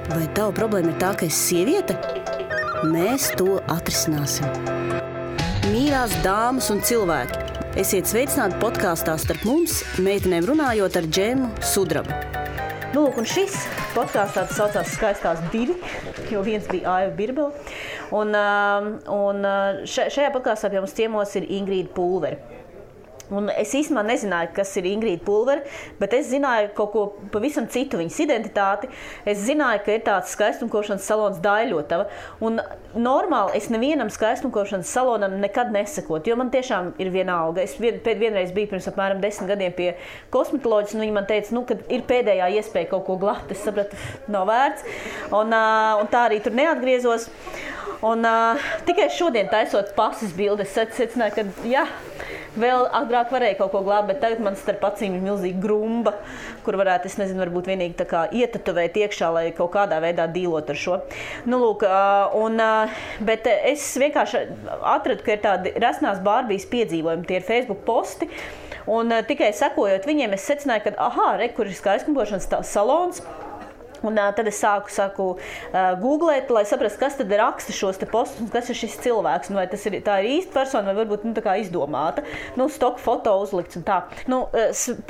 Vai tava problēma ir tā, ka esi sieviete? Mēs to atrisināsim. Mīļās dāmas un cilvēki, esiet sveicināti podkāstā Starp mums, meitenēm runājot ar Džemu Sudrabu. Nu, lūk, un šis podkāstā tas saucās Skaistās divi, jo viens bija Aiva Birbele. Un šajā podkāstā pie mums ciemos ir Ingrīda Pulvere. Un es īstenībā nezināju, kas ir Ingrīda Pulvere, bet es zināju kaut ko pavisam citu, viņas identitāti. Es zināju, ka ir tāds skaistumkošanas salons Daļļotava. Un normāli es nevienam skaistumkošanas salonam nekad nesakotu, jo man tiešām ir vienalga. Es vienreiz biju pirms apmēram 10 gadiem pie kosmetoloģijas, un viņi man teica, ka ir pēdējā iespēja kaut ko glāt. Es sapratu, nav vērts. Un tā arī tur neatgriezos. Un tikai šodien taisot pases bildi, es secināju, ka jā, vēl agrāk varēja kaut ko glābt, bet tagad man starp acīm ir milzīga grumba, kur varētu, es nezinu, varbūt vienīgi tā kā ietatuvēt iekšā, lai kaut kādā veidā dīlot ar šo. Nu, lūk, bet es vienkārši atradu, ka ir tādi resnās Bārbijas piedzīvojumi, tie ir Facebook posti, un tikai sekojot viņiem, es secināju, ka kur ir skaistumkošanas salons. Un tad es sāku googlēt, lai saprastu, kas tad raksta šos te postus, kas ir šis cilvēks, vai tā ir īsta persona, vai varbūt tā kā izdomāta. Stoka foto uzlikts un tā.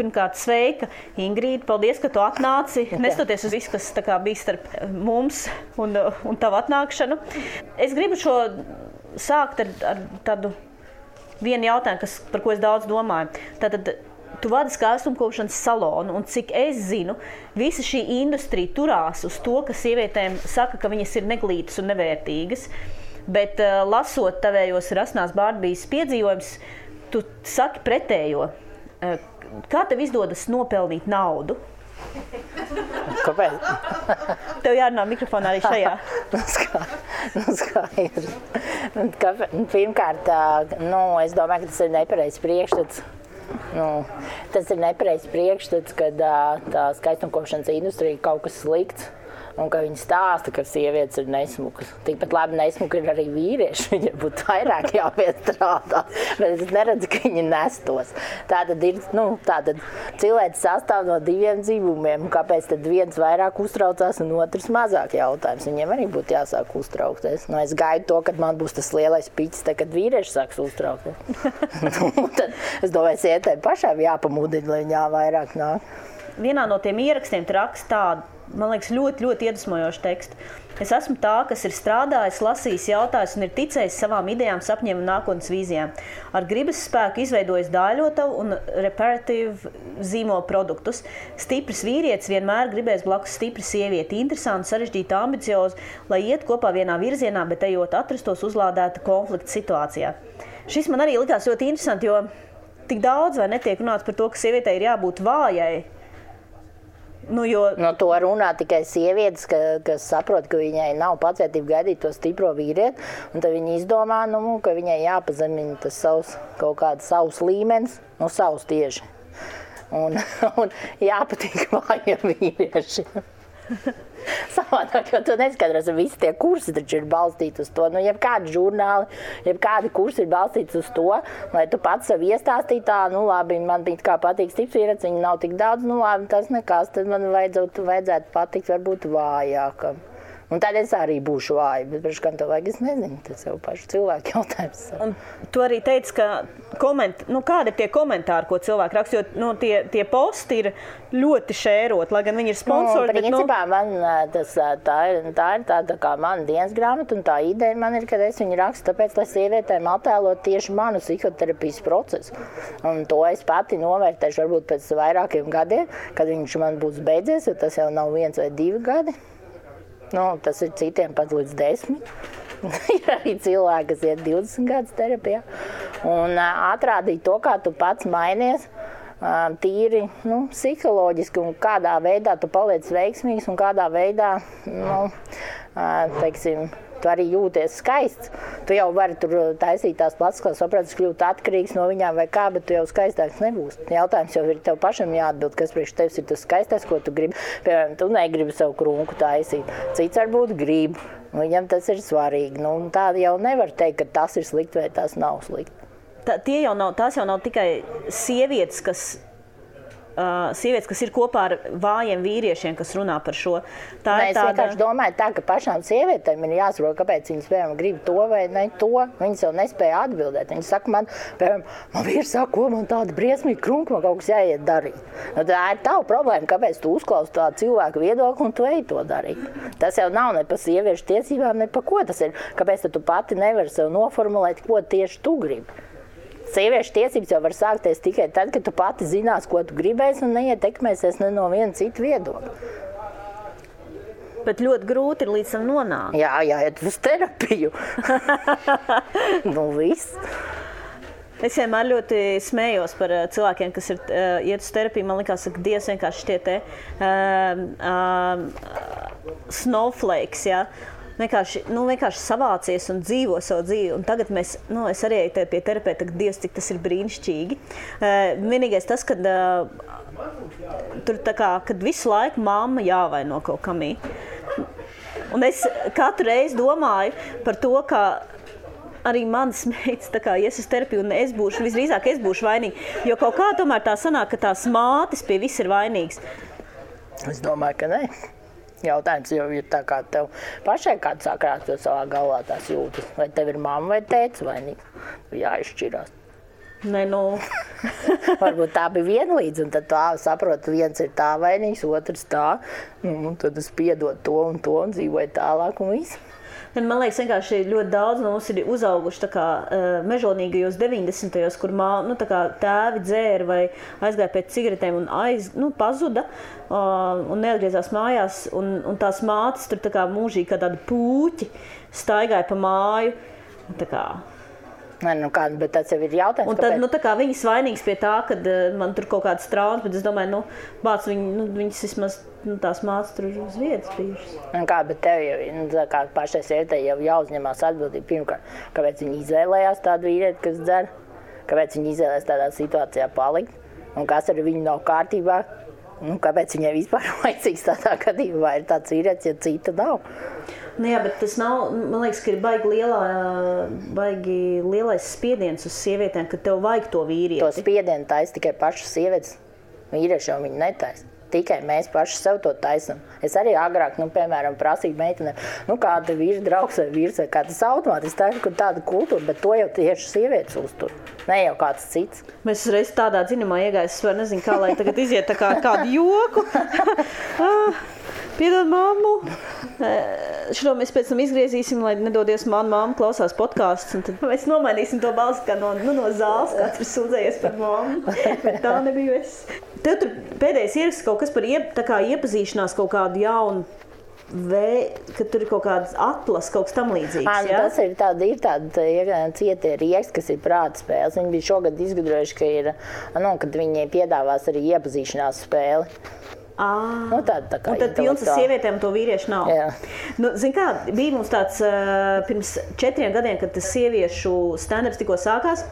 Pirmkārt, sveika, Ingrīda, paldies, ka tu atnāci, nestoties uz visu, kas tā kā bija starp mums un tavu atnākšanu. Es gribu šo sākt ar tādu vienu jautājumu, par ko es daudz domāju. Tātad, tu vadi skaistumkošanas salonu, un cik es zinu, visa šī industrija turās uz to, ka sievietēm saka, ka viņas ir neglītas un nevērtīgas, bet lasot tavējos Rasnās Bārbijas piedzīvojums, tu saki pretējo. Kā tev izdodas nopelnīt naudu? Kāpēc? Tev jārunā mikrofonā arī šajā. Skaidrs. Pirmkārt, es domāju, ka tas ir nepareizs priekšstats. Tas ir nepareizs priekšstats, kad tā skaistumkošanas industrija kaut kas slikts un ka viņi stāsta, ka sievietes ir nesmukas. Tikpat labi nesmuki ir arī vīrieši, viņiem būtu vairāk jāpiestrādā, bet es neredzu, ka viņi nestos. Tātad ir, tātad cilvēks sastāv no diviem dzīvumiem, kāpēc tad viens vairāk uztraucās un otrs mazāk jautājums. Viņiem arī būtu jāsāk uztraukties. Es gaidu to, kad man būs tas lielais piķis, kad vīrieši sāks uztraukties. Tad es domāju, sievietēm pašām jāpamudina, lai viņā vairāk nāk. Vienā no tiem ierakstiem tu raksti tādu, man liekas, ļoti, ļoti iedvesmojošu tekstu. Es esmu tā, kas ir strādājis, lasījis, jautājis un ir ticējis savām idejām, sapņiem un nākotnes vīzijām. Ar gribas spēku izveidojis Daļļotavu un reparatīvu zīmola produktus. Stiprs vīrietis vienmēr gribēs blakus stipra sievieti, interesanti, sarežģīta, ambiciozi, lai iet kopā vienā virzienā, bet ejot atrastos uzlādēta konflikta situācijā. Šis man arī likās ļoti interesanti, jo tik daudz vai netiek runāts par to, ka sievietei ir jābūt vājai. To runā tikai sievietes, kas saprot, ka viņai nav pacietība gaidīt to stipro vīrieti, un tad viņi izdomā, ka viņai jāpazemina tas kaut kāds savs līmenis, savs tieši. Un jāpatīk vājiem vīriešiem. Savādāk, jo tu neskaidros, visi tie kursi taču ir balstīti uz to. Jebkādi žurnāli, jebkādi kursi ir balstīti uz to, lai tu pats sev iestāstīji tā, labi, man kā patīk stiprs vīrietis, viņi nav tik daudz, labi, tas nekas, tad man vajadzētu patikt varbūt vājākam. Un tad es arī būšu vāja, bet priekš kam tev vajag, es nezinu, tas jau pašu cilvēku jautājums. Un tu arī teici, ka kādi ir tie komentāri, ko cilvēki raksta, jo tie posti ir ļoti šērot, lai gan viņi ir sponsori. Principā man tā ir tāda kā mana dienas grāmata, un tā ideja man ir, ka es viņu rakstu tāpēc, lai sievietēm attēlot tieši manu psihoterapijas procesu. Un to es pati novērtēšu varbūt pēc vairākiem gadiem, kad viņš man būs beidzies, jo tas jau nav 1 vai 2 gadi. Tas ir citiem pat līdz 10. Ir arī cilvēki, kas iet 20 gadus terapijā. Un atrādīt to, kā tu pats mainies, tīri psiholoģiski un kādā veidā tu paliec veiksmīgs un kādā veidā, tu arī jūties skaists. Tu jau vari tur taisīt tās plecs, kā saprātis kļūt atkarīgs no viņām vai kā, bet tu jau skaistāks nebūsi. Jautājums jau ir tev pašam jāatbild, kas priekš tevis ir tas skaistais, ko tu gribi. Piemēram, tu negribi savu krunku taisīt. Cits varbūt grib. Viņam tas ir svarīgi. Tā jau nevar teikt, ka tas ir slikti vai tas nav slikti. Tās jau nav tikai sievietes, kas sievietes, kas ir kopā ar vājiem vīriešiem, kas runā par šo. Es vienkārši domāju tā, ka pašām sievietēm ir jāsaprot, kāpēc viņas, piemēram, grib to vai ne to. Viņas jau nespēja atbildēt. Viņas saka man, piemēram, man vīrs saka, ko man tāda briesmīga krunka, man kaut kas jāiet darīt. Nu, tā ir tava problēma, kāpēc tu uzklausi tādu cilvēku viedokli un tu ej to darīt. Tas jau nav ne pa sieviešu tiesībām, ne pa ko tas ir. Kāpēc tu pati nevari sev noformulēt, ko tieši tu gribi. Sieviešu tiesības jau var sākties tikai tad, kad tu pati zinās, ko tu gribēsi un neietekmēsies ne no viena cita viedokļa. Bet ļoti grūti ir līdz tam nonākt. Jā, jāiet uz terapiju. Nu, viss. Es vienmēr ļoti smējos par cilvēkiem, kas ir iet uz terapiju. Man likās, ka Dievs vienkārši tie snowflakes, jā. Vienkārši savācies un dzīvo savu dzīvi. Un tagad es arī eju pie terapeita, ka Dievs, cik tas ir brīnišķīgi. Vienīgais tas, kad tur kad visu laiku mamma jāvaino kaut kamī. Un es katru reizi domāju par to, ka arī manas meitas ies uz terapiju, un visdrīzāk es būšu vainīga. Jo kaut kā tomēr tā sanāk, ka tās mātes pie viss ir vainīgas. Es domāju, ka ne. Jautājums jau ir tā, kā tev pašai kāds sākrāt savā galvā tās jūtas. Vai tev ir mamma vai tētis vainīgs? Jāizšķirās. Nē, Varbūt tā bija vienlīdz, un tad tā saprot, viens ir tā vainīgs, otrs tā. Un tad es piedod to un dzīvoju tālāk un visu. Man liekas, vienkārši ļoti daudz no mums ir uzauguši mežonīgajos 90. kur tēvi dzēra vai aizgāja pēc cigaretēm un pazuda un neatgriezās mājās. Un tās mātes tur mūžīgi kā tādi puķi staigāja pa māju. Bet tas jau ir jautājums. Un tad viņas vainīgas pie tā, kad man tur kaut kādas traumas, bet es domāju, viņas vismaz tās mātes tur uz vietas bijušas. Bet tev jau pašai sievietei jau jāuzņemās atbildība pirmkārt. Kāpēc viņi izvēlējās tādu vīrieti, kas dzer? Kāpēc viņi izvēlējās tādā situācijā palikt? Un kas ar viņu nav kārtībā? Kāpēc viņai vispār vajadzīgs tādā gadījumā? Vai ir tāds vīrietis, ja cita nav? Jā, bet tas nav, man liekas, ka ir baigi lielais spiediens uz sievietēm, ka tev vajag to vīrieti. To spiedienu taisa tikai pašas sievietes. Vīrieši jau viņu netaisa. Tikai mēs paši sev to taisam. Es arī agrāk, piemēram, prasīju meitenēm, kāda vīra draugs vai vīrs vai kā tas automātiski taisu, ka tāda kultūra, bet to jau tieši sievietes uztur. Ne jau kāds cits. Mēs reiz tādā dziņumā iegājis, es var nezinu, kā lai tagad iziet kādu joku. Piedod mammu. Šo mēs pēc tam izgriezīsim, lai nedodies manu mammu klausās podcasts. Un tad mēs nomainīsim to balsi kā no zāles, kāds ir sūdzējies par mammu. Bet tā nebija es. Tev tur pēdējais ieraksts kaut kas par iepazīšanās kaut kādu jaunu ka tur ir kaut kāds atlas, kaut kas tam līdzīgs, jā? Tas ir tāda cietie rieksti, kas ir prāta spēles. Viņi bija šogad izgudrojuši, kad viņi piedāvās arī iepazīšanās spēli. Un tad pilns ar sievietēm to vīriešu nav. Jā. Zin kā, bija mums tāds pirms 4 gadiem, kad tas sieviešu stand-ups tikko sākās.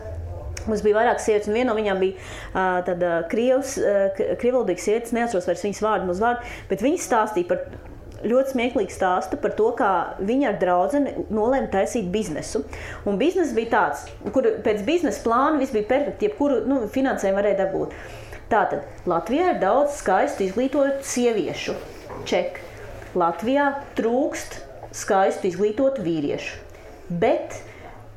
Mums bija vairāk sievietes, un viena no viņām bija tāda krievvalodīga sievietes, neatceros vairs viņas vārdu, bet viņas stāstīja par ļoti smieklīgu stāstu par to, kā viņa ar draudzeni nolēma taisīt biznesu. Un biznes bija tāds, kur pēc biznesa plāna viss bija perfekti, jebkuru finansējumu varēja dabūt. Tātad Latvijā ir daudz skaistu izglītotu sieviešu. Ček. Latvijā trūkst skaistu izglītotu vīriešu. Bet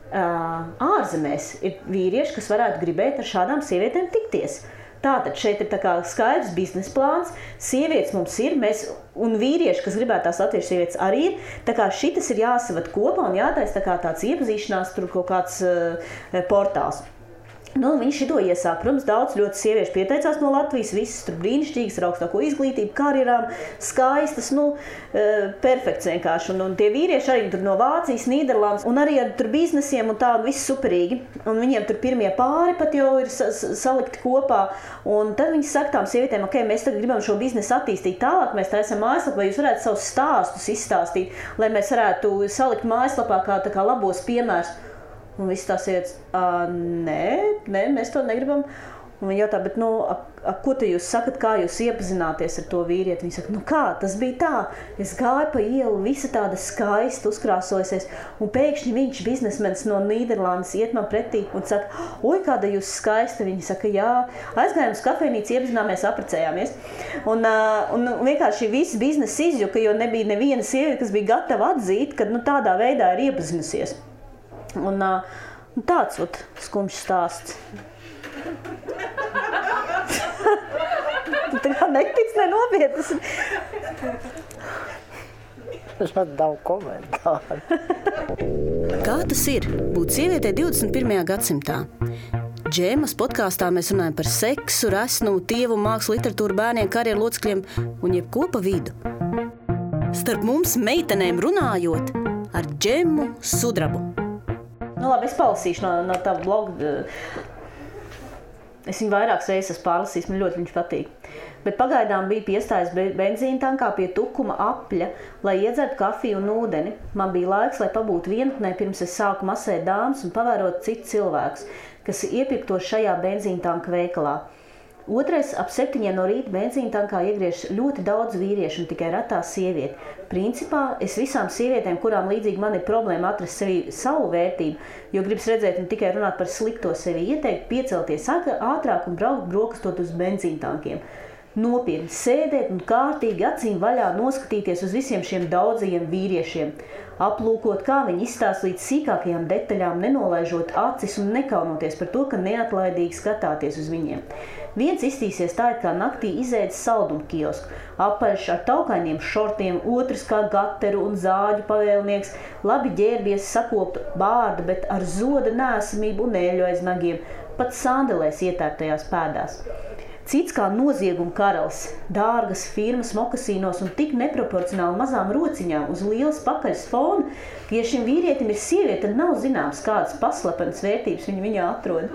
ārzemēs ir vīrieši, kas varētu gribēt ar šādām sievietēm tikties. Tātad šeit ir skaidrs biznesa plāns, sievietes mums ir, un vīrieši, kas gribētu tās latviešu sievietes arī ir. Tā kā šitas ir jāsavad kopā un jātaisa tāds iepazīšanās, tur kaut kāds portāls. Viņi šito iesāk. Protams, daudz ļoti sieviešu pieteicās no Latvijas, visas tur brīnišķīgas, ar augstāko izglītību, karjerām, skaistas, perfekts vienkārši. Un tie vīrieši arī tur no Vācijas, Nīderlandes, un arī ar tur biznesiem un tādu viss superīgi. Un viņiem tur pirmie pāri pat jau ir salikti kopā. Un tad viņi saka tām sievietēm, ok, mēs tagad gribam šo biznesu attīstīt tālāk, mēs taisam mājaslapu, vai jūs varētu savus stāstus izstāstīt, lai mēs varētu salikt mājaslapā kā labos piemērus. Un viss tās sievietes, nē, mēs to negribam. Un viņi jautā, bet ko te jūs sakat, kā jūs iepazināties ar to vīrieti? Viņi saka, nu kā, tas bija tā. Es gāju pa ielu, visa tāda skaista uzkrāsojusies, un pēkšņi viņš, biznesmenis no Nīderlandes, iet man pretī un saka, oi, kāda jūs skaista. Viņi saka, jā, aizgājām uz kafejnīcu, iepazināmies, apprecējāmies. Un vienkārši viss biznesa izjuka, jo nebija neviena sieviete, kas bija gatava atzīt, ka tādā veidā ir iepazinusies. Un tāds skumjš stāsts. Tu kā netic, nenopietnas. Tas man nav komentāru. Kā tas ir būt sievietei 21. gadsimtā? Džemas podkāstā mēs runājam par seksu, resnumu, tievumu, mākslu, literatūru, bērniem, karjeru locekļiem un jebko pa vidu. Starp mums meitenēm runājot ar Džemu Sudrabu. Labi, es palasīšu no tā bloga. Es viņu vairākas reizes esmu pārlasījis, man ļoti viņš patīk. Bet pagaidām bija piestājis benzīna tankā pie tukuma apļa, lai iedzertu kafiju un ūdeni. Man bija laiks, lai pabūtu vienatnē, pirms es sāku masēt dāmas un pavērot citus cilvēkus, kas iepirktos šajā benzīna tanka veikalā. Otrais, ap 7 no rīta benzīna tankā iegriež ļoti daudz vīriešu un tikai retā sievieti. Principā es visām sievietēm, kurām līdzīgi man ir problēma atrast sevi savu vērtību, jo gribas redzēt un tikai runāt par slikto sevi, ieteikt piecelties ātrāk un braukt brokastot uz benzīna tankiem. Nopietni sēdēt un kārtīgi acīm vaļā noskatīties uz visiem šiem daudzajiem vīriešiem. Aplūkot, kā viņi izstāsta līdz sīkākajām detaļām, nenolaižot acis un nekaunoties par to, ka neatlaidīgi skatāties uz viņiem. Viens iztīsies tā, kā naktī izēdis saldumu kiosku, apaļš ar taukainiem šortiem, otrs kā gateru un zāģu pavēlnieks, labi ģērbies sakoptu bārdu, bet ar zoda nēsamību un ēļu aiz nagiem, pat sandelēs ietērptajās pēdās. Cits kā nozieguma karalis, dārgas firmas mokasīnos un tik neproporcionāli mazām rociņām uz lielas pakaļas fona, ka, ja šim vīrietim ir sieviete, tad nav zināms, kādas paslepenas vērtības viņi viņā atrod.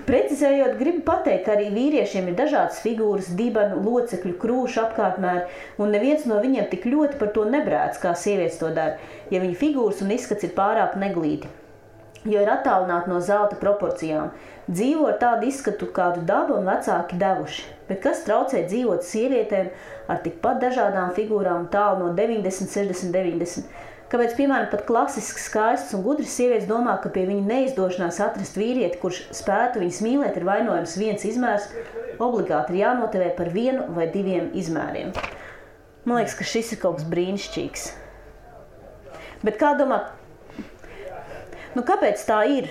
Precizējot, gribu pateikt, ka arī vīriešiem ir dažādas figūras, dibanu, locekļu, krūšu apkārtmēri, un neviens no viņiem tik ļoti par to nebrēc, kā sievietes to dara, ja viņa figūras un izskats ir pārāk neglīti, jo ir attālināti no zelta proporcijām. Dzīvo ar tādu izskatu, kādu daba un vecāki devuši, bet kas traucē dzīvot sievietēm ar tikpat dažādām figūrām tālu no 90, 60, 90? Kāpēc, piemēram, pat klasiski skaistas un gudras sievietes domā, ka pie viņa neizdošanās atrast vīrieti, kurš spētu viņas mīlēt, ir vainojams viens izmērs, obligāti ir jānotivē par 1 vai 2 izmēriem. Man liekas, ka šis ir kaut kas brīnišķīgs. Bet kā domā, kāpēc tā ir?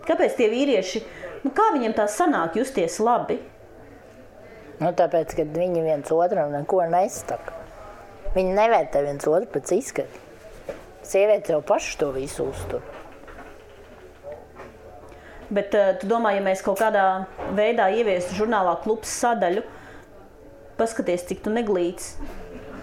Kāpēc tie vīrieši, kā viņiem tā sanāk justies labi? Tāpēc, ka viņi viens otram neko nestaka. Viņi nevērtē viens otru pēc izskata. Sievietes jau paši to visu uztur. Bet tu domā, ja mēs kaut kādā veidā ieviestu žurnālā Klubs sadaļu, paskaties, cik tu neglīts,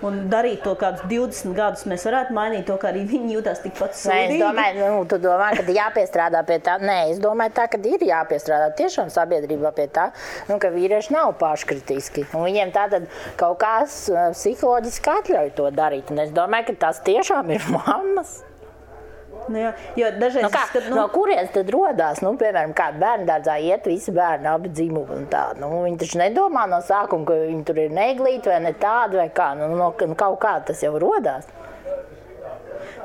un darīt to kādus 20 gadus, mēs varētu mainīt to, kā arī viņi jūtās tikpat sūdīgi. Es domāju, tu domā, ka jāpiestrādā pie tā. Nē, es domāju tā, ka ir jāpiestrādā tiešām sabiedrībā pie tā, ka vīrieši nav paškritiski. Un viņiem tātad kaut kāds psiholoģiski atļauj to darīt. Un es domāju, ka tas tiešām ir mammas. Jo dažreiz no kurienes tad rodās? Piemēram, kā bērndārdzā iet visi bērni, abi dzimumi un tā. Viņi taču nedomā no sākuma, ka viņi tur ir neglīti vai ne tādi vai kā. Kaut kā tas jau rodās.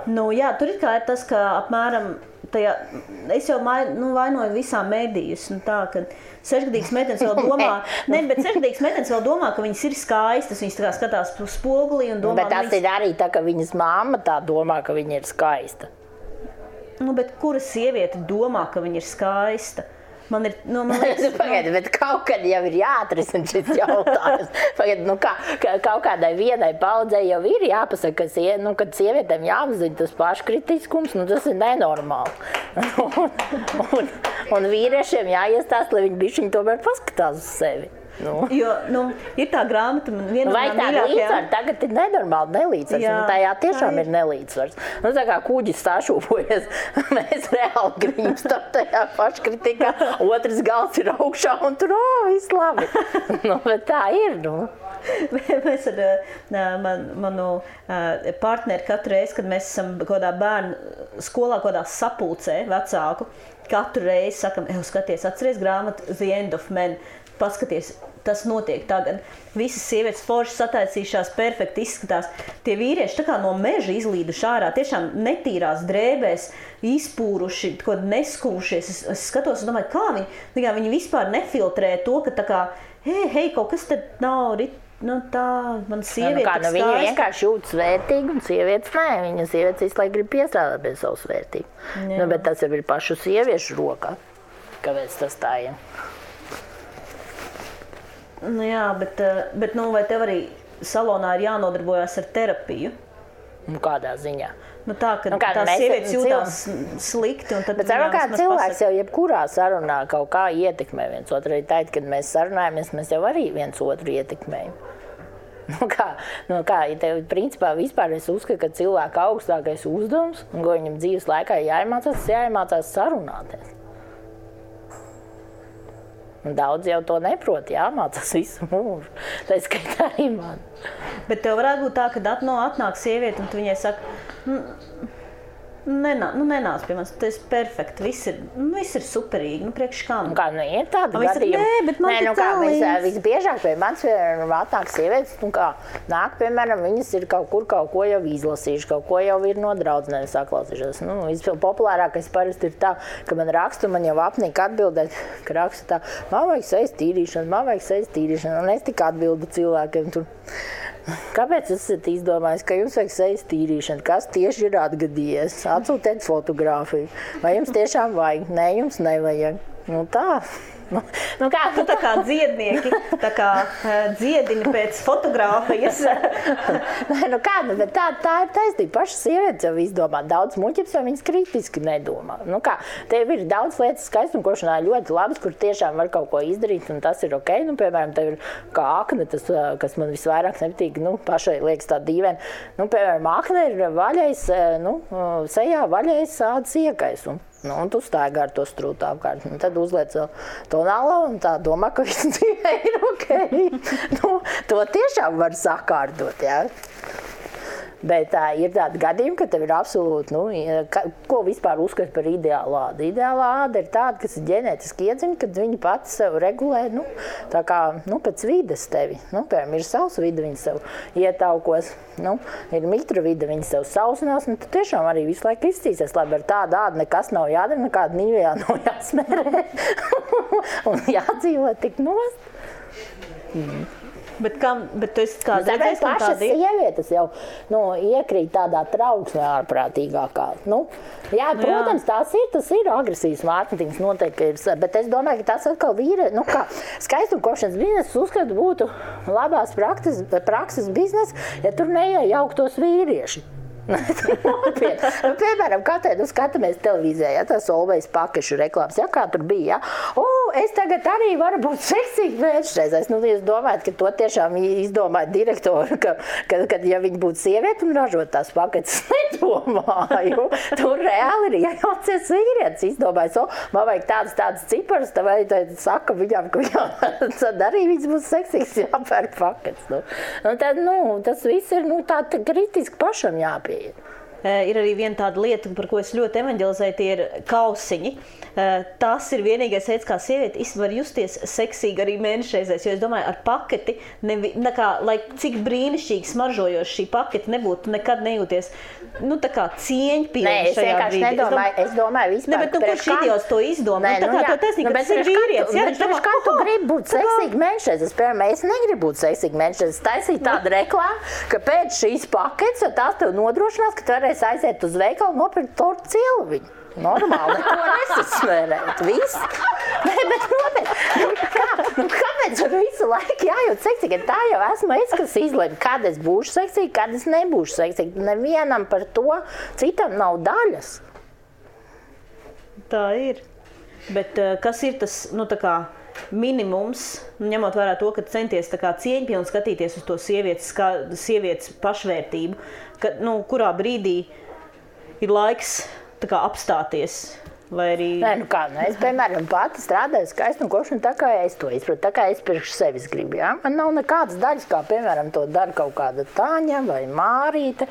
Tur ir tas, ka apmēram tajā, es jau vainoju visām mēdījus. Ka 6-gadīgas meitenes vēl domā, bet 6-gadīgas meitenes vēl domā, ka viņas ir skaistas, viņas tā kā skatās uz spogulī un domā. Bet tas ir arī tā, ka viņas mamma tā domā, ka viņa ir skaista. Bet kura sieviete domā, ka viņa ir skaista? Man liekas, Pagaidi, bet kaut kad jau ir jāatrisina šis jautājums. Pagaidi, kaut kādai vienai paudzei jau ir jāpasaka, kad sievietēm jāapzina tas paškritiskums, tas ir nenormāli. Un vīriešiem jāiestāst, lai viņi bišķiņi tomēr paskatās uz sevi. Jo, ir tā grāmata, viena vai tā līdzsvars tagad ir nenormāli nelīdzsvars, un tajā tiešām ir nelīdzsvars. Tā kā kuģis sašūpojas, mēs reāli grimstam tajā paškritikā, otrs gals ir augšā un tur, viss labi. Bet tā ir, Mēs ar manu partneri katru reizi, kad mēs esam kādā bērnu skolā, kādā sapulcē vecāku, katru reizi sakam, skaties, atceries grāmatu The End of Men, paskaties, tas notiek tagad. Visas sievietes forši sataisījušās, perfekti izskatās. Tie vīrieši tā kā no meža izlīduši ārā, tiešām netīrās drēbēs, izpūruši, kaut neskūšies. Es skatos un domāju, kā viņi vispār nefiltrē to, ka tā kā, hei, kaut kas tad nav tā, man sieviete viņa vienkārši jūtas vērtīgi, un sievietes nē. Viņa sievietes visu laiku grib piestrādāt pie savas vērtības. Bet tas jau ir pašu sieviešu rokā, kāpēc tas tā ir. Jā, bet vai tev arī salonā ir jānodarbojas ar terapiju? Kādā ziņā? Tā, ka tās sievietes jūtās slikti. Un tad bet kā cilvēks jau jebkurā sarunā kaut kā ietekmē viens otru. Arī tā, kad mēs sarunājamies, mēs jau arī viens otru ietekmējam. Ja tev principā vispār es uzskatu, ka cilvēka augstākais uzdevums, un ko viņam dzīves laikā jāiemācās sarunāties. Un daudz jau to neprot, jāmācās visu mūžu. Tā skaitā arī man. Bet tev varētu būt tā, ka atnāk sieviete un tu viņai saka, nenāc pie manis, tas ir perfekti, viss ir superīgi, priekš kam? Ir tāda gadījuma. Nē, bet man visbiežāk pie manis atnāk sievietes, nāk, piemēram, viņas ir kaut ko jau izlasījuši, kaut ko jau ir no draudzenēm saklausījušās. Populārākais parasti ir tā, ka man raksta, man jau apnika atbildēt, ka raksta tā, man vajag sejas tīrīšanu, un es tik atbildu cilvēkiem tur. Kāpēc esat izdomājis, ka jums vajag sejas tīrīšanu? Kas tieši ir atgadījies? Atsūtiet fotogrāfiju. Vai jums tiešām vajag? Nē, jums nevajag. Tā. Tā kā dziednieki, tā kā dziedini pēc fotogrāfijas. Bet tā ir taisnība. Pašas sievietes jau izdomā daudz muļķības, jo viņas kritiski nedomā. Tev ir daudz lietas skaistumkošanā ļoti labas, kur tiešām var kaut ko izdarīt, un tas ir ok. Piemēram, tev ir kā akne, tas, kas man visvairāk nepatīk, pašai liekas tā dīvaini. Piemēram, akne ir vaļais, sejā vaļais ādas iekaisums. Un tu staigā ar to strūtu apkārt. Tad uzliec tonālu un tā domā, ka viss dzīvē ir ok. To tiešām var sakārtot, jā. Bet ir tādi gadījumi, ka tev ir absolūti, ko vispār uzskata par ideālu ādu. Ideālā āda ir tāda, kas ir ģenētiski iedzimta, kad viņi pati sev regulē, tā kā, pēc vides tevi. Piemēram, ir savs vide, viņi sev ietaukos, ir mitra vide, viņi sev sausinās, tad tiešām arī visu laiku izcīsies. Labi, ar tādu ādu nekas nav jādara, nekāda nīvijā nav jāsmērē un jādzīvot tik nost. Bet tu esi kā redzējis, ka pašas sievietes jau iekrīt tādā trauksmē ārprātīgākā. Protams, tas ir agresīvs mārketings noteikti ir, bet es domāju, ka tas atkal skaistumkošanas biznesa uzskatu būtu labās prakses biznesa, ja tur neiejauktos vīrieši. Piemēram, katru skatāmies televīzijā, tas Olvejas pakešu reklāmas, kā tur bija. Es tagad arī varu būt seksīgi vēstreizēs. Jūs domājat, ka to tiešām izdomāja direktori, ka ja viņi būtu sievieti un ražot tās paketes, nedomāju. Tur reāli ir iejaucies vīrietis, izdomājis, man vajag tādas ciparas, tad saka viņam, ka tad arī viņas būs seksīgs jāpērk paketes. Tas viss ir tā kritiski pašam jāpieeja. Ir arī viena tāda lieta, par ko es ļoti evanģelizēju, tie ir kausiņi. Tas ir vienīgais veids, kā sieviete var justies seksīgi arī mēnešreizēs, jo es domāju, ar paketi, lai cik brīnišķīgi smaržojoši šī paketi nebūtu, nekad nejūties, tā kā cieņpilni šajā brīdī. Es domāju vispār. Bet kurš idiots to izdomā? To taisnīgi, tas ir vīrietis. Kā tu gribi būt seksīgi mēnešreizēs? Piemēram, es negribu būt seksīgi mēnešreizēs. Taisīt tādu reklāmu, ka pēc šīs paketes, tās tev nodrošinās, ka tu varēsi aiziet uz veikalu nopirkt tortu cilviņu. Normāli, neko nesasmērēt. Viss. Bet nopietni. Kāpēc visu laiku jājūt seksīgi? Tā jau esmu es, kas izlēma, kad es būšu seksīgi, kad es nebūšu seksīgi. Nevienam par to, citam nav daļas. Tā ir. Bet kas ir tas, minimums, ņemot vērā to, ka centies cieņpilni skatīties uz to sievietes pašvērtību, ka, kurā brīdī ir laiks apstāties Vai arī... Nē, es, piemēram, pati strādāju skaistumkošanu tā, kā es to izprotu, tā kā es priekš sevis gribu, jā. Man nav nekādas daļas, kā, piemēram, to dara kaut kāda Tāņa vai Mārīte,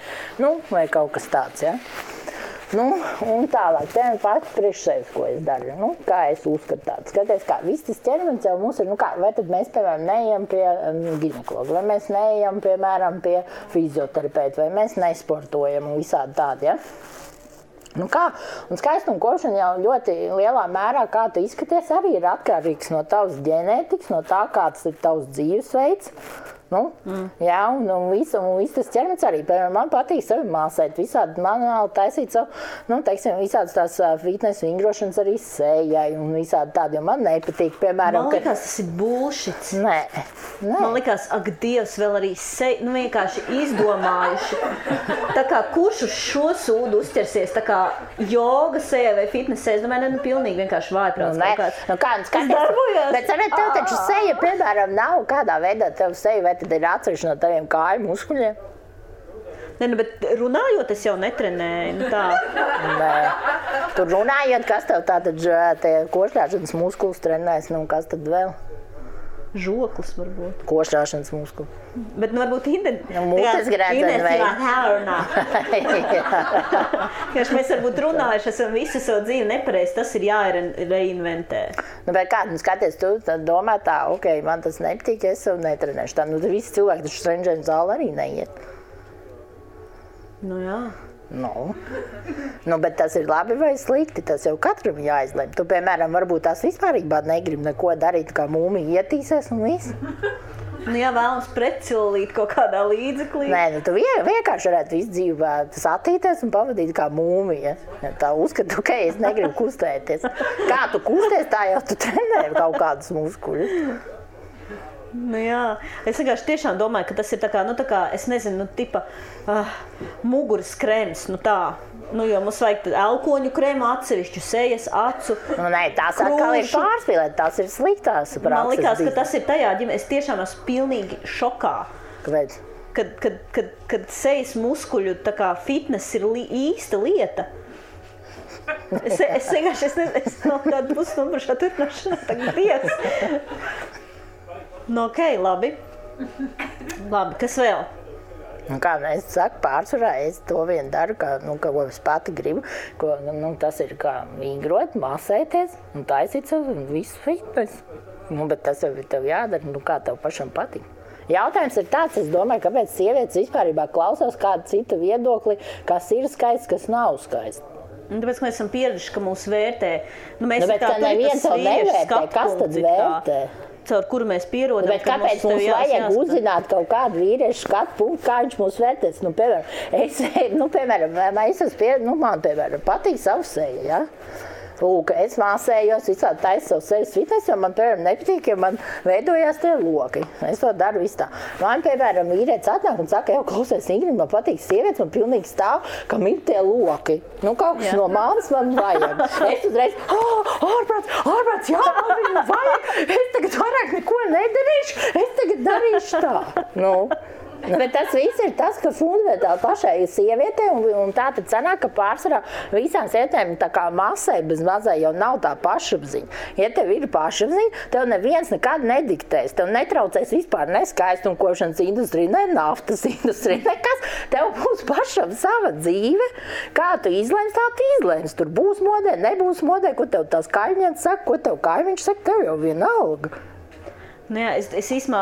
vai kaut kas tāds, jā. Un tālāk, piemēram, pati priekš sevis, ko es daru, kā es uzskatu tādu. Skaties, kā viss tas ķermenis jau mums ir, vai tad mēs, piemēram, neejam pie ginekologa, vai mēs neejam, piemēram, pie fizioterapeita, vai mēs nesportojam un visādi tādi, ja? Un skaistumkošana jau ļoti lielā mērā, kā tu izskaties, arī ir atkarīgs no tavas ģenētikas, no tā, kāds ir tavs dzīvesveids. Jā, un viss tas ķermenis arī. Piemēram, man patīk sevi māsēt, visādi manuāli taisīt savu, visādas tās fitness vingrošanas arī sējai un visādi tādi, jo man nepatīk, piemēram, Man likās, tas ir bullshits. Nē. Man likās, ak, Dievs, vēl arī vienkārši izdomājuši. Tā kā kurš uz šo sūdu uzķersies, tā kā joga sējai vai fitness sējai, es domāju, pilnīgi vienkārši vājprāts kaut kāds. Tas darbojās. Bet, tev taču seja, piemēram, nav kādā veidā tev seja, vai tad ir atsevišķi no taviem kāju muskuļiem? Nē, bet runājot, es jau netrenēju, tā. Nē. Tur runājot, kas tev tātad košļāšanas muskulis trenēs, kas tad vēl? Žoklis varbūt. Košļāšanas muskuli. Bet varbūt mutes grēdzeni vai? Mēs varbūt runājuši, esam visu savu dzīvi nepareizi, tas ir jāreinventē. Bet kā, skaties, tu domā tā, man tas nepatīk, es sev netrenēšu. Tā, visi cilvēki taču treniņu zāli arī neiet. Jā. Bet tas ir labi vai slikti, tas jau katram jāizlem. Tu, piemēram, varbūt tās vispārībā negribi neko darīt, kā mūmija ietīsies un viss. Jā, vēlams pretcilīt kaut kādā līdzeklī. Nē, tu vienkārši varētu visu dzīvi satīties un pavadīt kā mūmija. Tā uzskatu, es negribu kustēties. Kā tu kusties, tā jau tu trenē kaut kādus muskuļus. Jā, es vienkārši tiešām domāju, ka tas ir tā kā, es nezinu, tipa muguras krēms, jo mums vajag elkoņu krēmu atsevišķu, sejas, acu, tās atkal ir pārspīlēt, tās ir sliktās prakses. Man likās, ka tas ir tajā ģimē, es tiešām esmu pilnīgi šokā. Kāpēc? Kad sejas muskuļu tā kā fitness ir īsta lieta. Es vienkārši, es no kādu pusstundu par šo turpināšanu tagad Dievs. Labi, kas vēl? Kā es saku, pārsvarā es to vien daru, ko es pati gribu, tas ir kā vingrot, masēties un taisīt savu visu fitness. Bet tas jau ir tev jādara, kā tev pašam patīk. Jautājums ir tāds, es domāju, kāpēc sievietes vispārībā klausās kādu citu viedokli, kas ir skaists, kas nav skaists. Tāpēc, ka mēs esam pieraduši, ka mūs vērtē. Bet ka neviens to nevērtē, kas tad vērtē? Caur kuru mēs pierodam. Bet kāpēc mums vajag uzzināt kaut kādu vīriešu skatu punktu, kā viņš mūs vērtēs? Man, piemēram, patīk savu seju, ja? Lūk, es māsējos, visādi taisu savu sejas fitness, jo man, piemēram, nepatīk, ja man veidojās tie loki. Es to daru visu tā. Man, piemēram, vīrietis atnāk un saka, klausies, Ingrid, man patīk sievietes, man pilnīgi stāv, kam ir tie loki. Kaut kas no manis man vajag. Es uzreiz, ārprāts, jā, man viņu vajag. Es tagad vairāk neko nedarīšu, es tagad darīšu tā. Bet tas viss ir tas, ka fundamentāli pašai sievietei, un tā tad sanāk, ka pārsvarā visām sievietēm tā kā masai bez mazai jau nav tā pašapziņa. Ja tev ir pašapziņa, tev neviens nekad nediktēs, tev netraucēs vispār ne skaistumkošanas industrija, ne naftas industrija, nekas. Tev būs pašam sava dzīve, kā tu izlems, tā tu izlems. Tur būs modē, nebūs modē, ko tev tās kaimiņas saka, ko tev kaimiņš saka, tev jau vienalga. Jā, es īsmā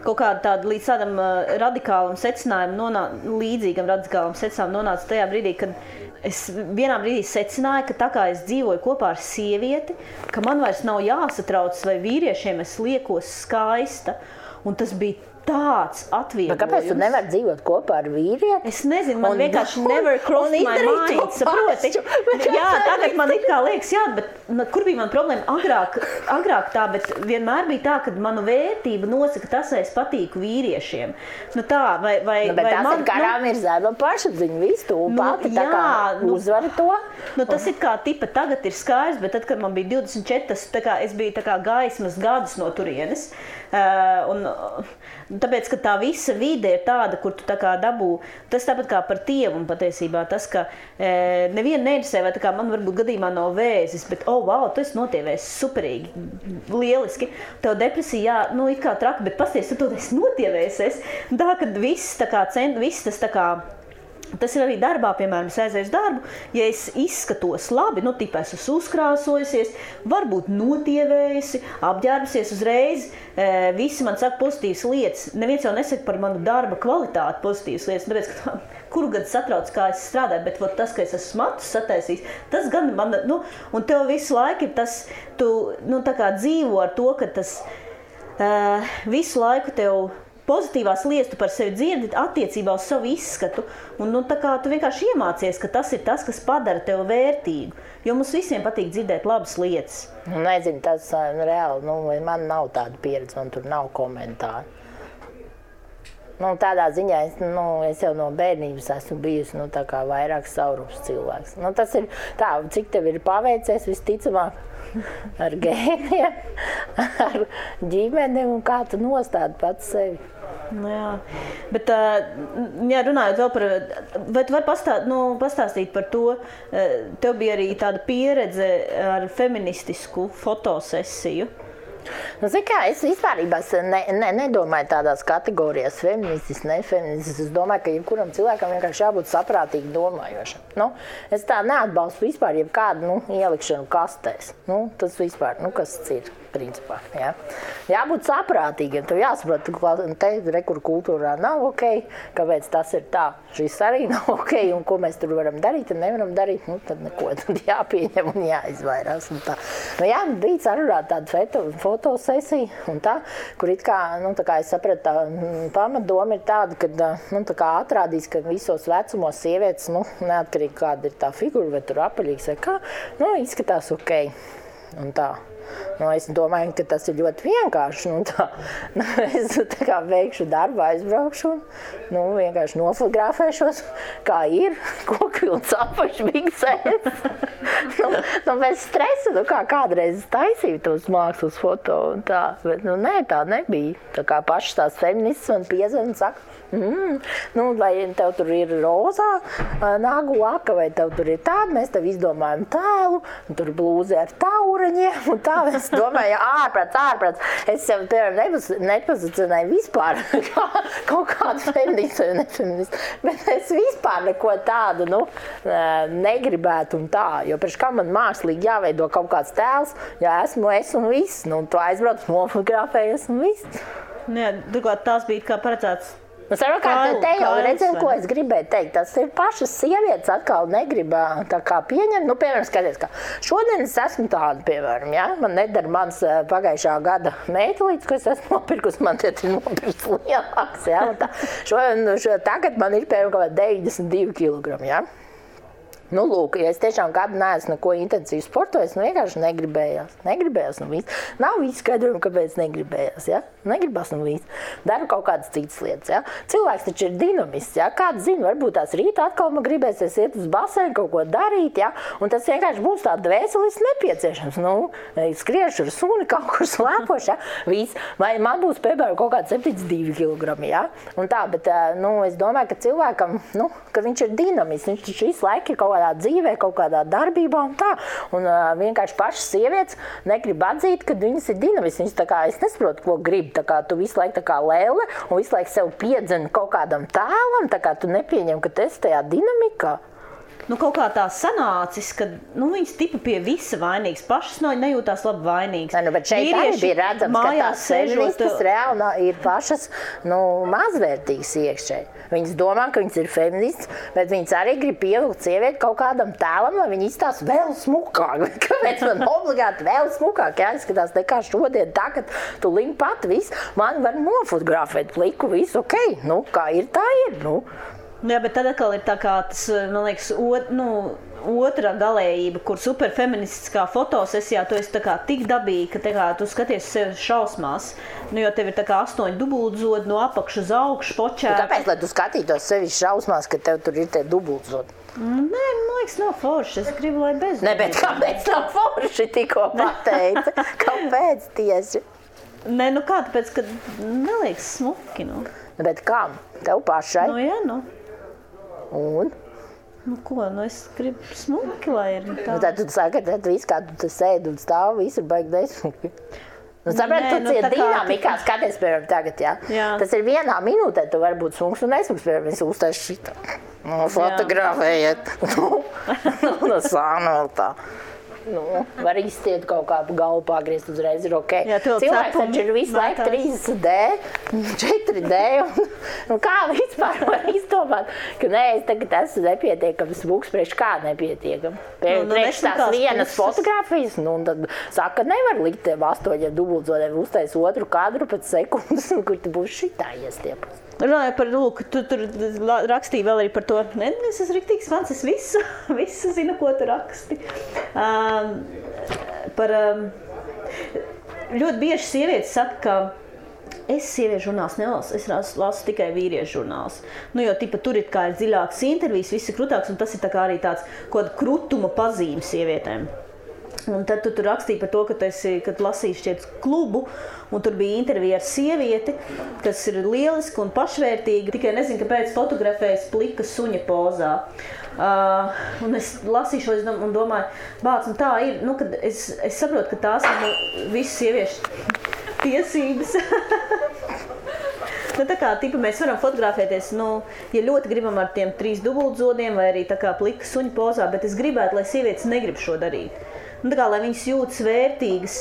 kaut kādu tādu līdz tādam radikālam secinājumam, līdzīgam radikālam secinājumam nonācu tajā brīdī, kad es vienā brīdī secināju, ka tā kā es dzīvoju kopā ar sievieti, ka man vairs nav jāsatrauc, vai vīriešiem es liekos skaista, un tas bija tāds atvieglojums. Kāpēc tu nevari dzīvot kopā ar vīrieti? Es nezinu, man vienkārši never crossed my mind, saproti? Jā, tagad man it kā liekas, jā, bet kur bija man problēma? Agrāk tā, bet vienmēr bija tā, ka manu vērtību nosaka tas, vai es patīku vīriešiem. Bet tas ir karām ir zēma pašapziņa, visu tu pati tā kā uzvari to. Tas ir kā tipa tagad ir skaidrs, bet tad, kad man bija 24, tā kā es biju tā kā gaismas gadus no turienes. Un Tāpēc, ka tā visa vide ir tāda, kur tu tā kā dabū, tas tāpat kā par tievumu patiesībā, tas, ka nevienu neinteresē, vai tā kā man varbūt gadījumā nav vēzis, bet, wow, tu esi notievēs superīgi, lieliski. Tev depresija, jā, it kā traki, bet pasties, tu esi notievēsies. Tā, kad viss tā kā viss tas tā kā, tas ir arī darbā, piemēram, es aizēju uz darbu, ja es izskatos labi, tipā es esmu uzkrāsojusies, varbūt notievējusi, apģērbusies uzreiz, visi man saka pozitīvas lietas. Neviens jau nesaka par manu darba kvalitāti pozitīvas lietas, tāpēc, ka kuru gadu satrauc, kā es strādāju, bet tas, ka es esmu matus sataisījis, tas gan man, un tev visu laiku ir tas, tu, tā kā dzīvo ar to, ka tas visu laiku tev pozitīvās lietas tu par sevi dzirdi attiecībā uz savu izskatu, un tā kā tu vienkārši iemācies, ka tas ir tas, kas padara tev vērtīgu, jo mums visiem patīk dzirdēt labas lietas. Nezinu, tas reāli, man nav tāda pieredze, man tur nav komentāru. Tādā ziņā es jau no bērnības esmu bijusi tā kā vairāk saurups cilvēks. Tas ir tā, cik tev ir paveicies visticamāk ar gēniem, ar ģimenēm un kā tu nostādi pats sevi. Jā, bet runājot vēl par, vai tu vari pastāstīt par to, tev bija arī tāda pieredze ar feministisku fotosesiju? Es vispārībā nedomāju tādās kategorijās feministis, nefeministis. Es domāju, ka jebkuram cilvēkam vienkārši jābūt saprātīgi domājošam. Es tā neatbalstu vispār jebkādu ielikšanu kastēs. Tas vispār, kas tas ir principā. Jā. Jābūt saprātīgiem. Tev jāsaprot, ka kur kultūrā nav ok, kāpēc tas ir tā. Šis arī nav ok, un ko mēs tur varam darīt un nevaram darīt, tad neko tad jāpieņem un jāizvairās. Un tā. Bija sarunāta tāda fotosesija, un tā, kur it kā, tā kā es sapratu, tā pamatdoma ir tāda, ka tā kā atrādīs, ka visos vecumos sievietes, neatkarīgi kāda ir tā figura, vai tur apaļīgs vai kā, izskatās ok. Un tā. Es domāju, ka tas ir ļoti vienkārši. Es tā kā veikšu darbu, aizbraukšu un vienkārši nofotografēšos, kā ir, kokvilns apašbiksēs. Bez stresa, kā kādreiz taisīju tos mākslas foto un tā. Bet nē, tā nebija. Tā kā pašas tās feministas man piezvan un saka, vai tev tur ir rozā nagu laka, vai tev tur ir tāda, mēs tev izdomājam tēlu, un tur blūzi ar taureņiem, un tā es domāju, ārprāts. Es sev, piemēram, nepozicionēju vispār kaut kādu feministu vai nefeministu, bet es vispār neko tādu, negribētu un tā, jo priekš kā man mākslīgi jāveido kaut kāds tēls, ja esmu es un viss, tu aizbrauc, nofotografējies un viss. Turklāt tās bija kā paredzēts. Savukārt, te jau redzēju, ko es gribēju teikt. Tas ir pašas sievietes atkal negrib tā kā pieņemt. Piemēram, skaties, ka šodien es esmu tāda, piemēram, ja? Man nedara mans pagājušā gada meitulītes, ko es esmu nopirkusi, man te ir nopirks lielāks, ja? Tagad man ir, piemēram, 92 kilogrami, ja? Lūk, ja es tiešām gadu neesmu neko intensīvi sportojis, vienkārši negribējās un viss. Nav visu skaidrojumu, kāpēc negribējās, ja? Negribas un viss. Daru kaut kādas citas lietas, ja? Cilvēks taču ir dinamists, ja? Kāds zina, varbūt tās rīta atkal man gribēsies iet uz basēnu, kaut ko darīt, ja? Un tas vienkārši būs tā dvēselis nepieciešams. Skriešu ar suni, kaut kur slēpošu, ja? Viss. Vai man būs, piemēram, kaut kāds 72 kilogrami, ja? Un tā, bet, es domāju, ka cilvēkam, ka viņš ir dinamists, viņš taču visu laiku ir kaut kādā dzīvē, kaut kādā darbībā un tā. Un vienkārši pašas sievietes negrib atzīt, ka viņas ir dinamists. Viņas tā kā, es nesaprotu, ko grib. Tā kā tu visu laiku tā kā lēle un visu laiku sev piedzeni kaut kādam tēlam, tā kā tu nepieņem, ka tu esi tajā dinamikā. Kaut kā tā sanācis, ka viņas tipa pie visa vainīgas, pašas nejūtās labi vainīgas. Bet šeit arī bija redzams, ka tās feministas reāli ir pašas mazvērtīgas iekšēji. Viņas domā, ka viņas ir feministas, bet viņas arī grib pievilkt sievieti kaut kādam tēlam, lai viņi izstās vēl smukāk. Kāpēc man obligāti vēl smukāk jāizskatās nekā šodien, tagad tu link pat viss, man var nofotografēt pliku, visu ok, kā ir, tā ir, Jā, bet tad atkal ir tā kā tas, man liekas, otra galējība, kur superfeministiskā fotosesijā tu esi tā kā tik dabīgi, ka tā kā tu skaties sevi šausmās, jo tev ir tā kā 8 dubultzodi no apakšu uz augšu počēta. Kāpēc, lai tu skatītos sevi šausmās, ka tev tur ir tie dubultzodi? Nē, man liekas, nav forši. Es gribu, lai bez. Ne, bet kāpēc nav forši tikko pateica? Kāpēc tieši? Nē, nu kā, tāpēc, ka neliekas smuki, nu. Bet kam? Tev pašai? Nu, jā, nu. Un? Nu, ko, nu es gribu smuki, lai ir tā. Nu, tad tu saki, ka viss, kā tu sēdi un stāv, viss ir baigi nesmuki. Nu, saprāt, tu ciet dinamikā, skaties, piemēram, tagad, jā. Tas ir vienā minūtē, tu vari būt smuks un nesmuks, piemēram, es uztais šitā. Nu, fotografējiet. Nu, sāna vēl tā. Nu, var izstiet kaut kā galvu pagriezt uzreiz, ir ok. Jā, cilvēks taču ir visu laiku 3D, 4D, un kā vispār var izdomāt, ka nē, es tagad esmu nepietiekams smuks, priekš kā nepietiekam. Priekš tās vienas fotogrāfijas, nu, un tad saka, nevar likt tiem 8 dubultzodiem uztais otru kadru pēc sekundes, kur tu būs šitā iestiepus. Runāju par, lūk, tu tur rakstīji vēl arī par to, ne, es esmu riktīgs fans, es visu zinu, ko tu raksti. Ļoti bieži sievietes saka, ka es sieviešu žurnāls nelasu, es lasu tikai vīriešu žurnāls. Nu, jo tipa, tur ir kā ir dziļāks intervijas, viss ir krutāks, un tas ir tā kā arī tāds kaut krutuma pazīme sievietēm. Un tad tu tur rakstīji par to, kad lasīji šķiet klubu, un tur bija intervija ar sievieti, kas ir lieliska un pašvērtīga, tikai nezinu, kāpēc fotografējas plika suņa pozā. Un es lasīju šo un domāju, bāc, un tā ir, nu, kad es saprotu, ka tās ir visas sieviešu tiesības. Nu, tā kā, tipa, mēs varam fotografēties, nu, ja ļoti gribam ar tiem 3 dubultzodiem vai arī tā kā plika suņa pozā, bet es gribētu, lai sievietes negrib šo darīt. Nu, tā kā, lai viņas jūtas vērtīgas,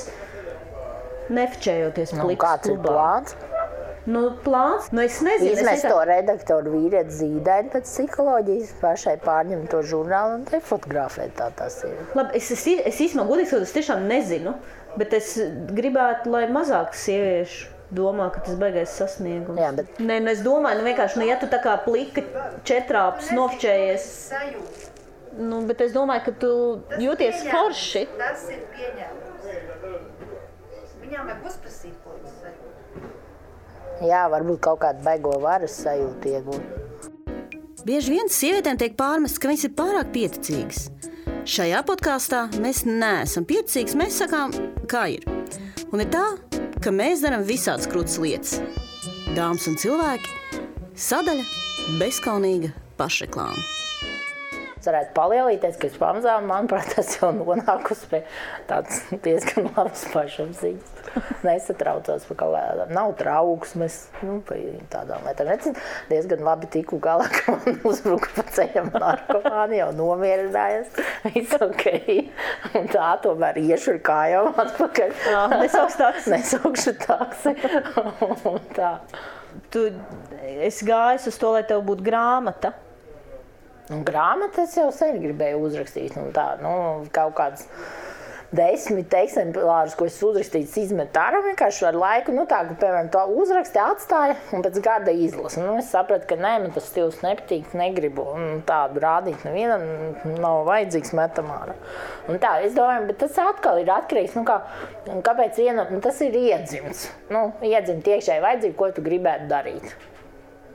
nefčējoties plikas klubā. Kāds ir plāns? Nu, plāns? Nu, es nezinu. Izmest to redaktoru vīrieti zīdaini pēc psiholoģijas, pašai pārņemt to žurnālu un te fotografēt tā tas ir. Labi, es īstenībā godīgi, es tiešām nezinu, bet es gribētu, lai mazāk sieviešu domā, ka tas baigais sasniegums. Jā, bet... Nē, nu, es domāju, nu, vienkārši, ja tu tā kā plika četrāpus nofčējies... Nu, bet es domāju, ka tu jūties forši. Tas ir pieņēmums. Viņām vajag uzprasīt, ko tas sajūt. Jā, varbūt kaut kādu baigo varas sajūtu iegūt. Bieži vien sievietēm tiek pārmests, ka viņas ir pārāk pieticīgas. Šajā podkāstā mēs neesam pieticīgas, mēs sakām, kā ir. Un ir tā, ka mēs darām visādas krūtas lietas. Dāmas un cilvēki, sadaļa bezkaunīga pašreklāma. Es varētu palielīties, ka es pamazām, manuprāt, tas jau nonākusi pie tāds diezgan labas pašapziņas. Nesatraucos par kaut kādām, nav trauksmes, nu, pa tādām lietām. Es diezgan labi tiku galā, ka man uzbruka pa ceļam narkomāni, jau nomierinājās, viss ok. Un tā tomēr iešu ar kājām atpakaļ. Nesaukšu taksi. Un tā. Tu esi gājis uz to, lai tev būtu grāmata. Un grāmatas jau sen gribēju uzrakstīt, un tā, nu, kaut kāds 10 eksemplārus, ko es uzrakstīju, izmet ārā vienkārši ar laiku, nu tā, ka, piemēram, to uzraksti atstāja un pēc gada izlasa. Nu, es sapratu, ka nē, man tas stils nepatīk, negribu, un tādu rādīt nevienam nav vajadzīgs metam ārā. Un tā, es domāju, bet tas atkal ir atkarīgs, nu, kāpēc nu, tas ir iedzimts. Nu, iedzimt iekšēji vajadzību, ko tu gribētu darīt.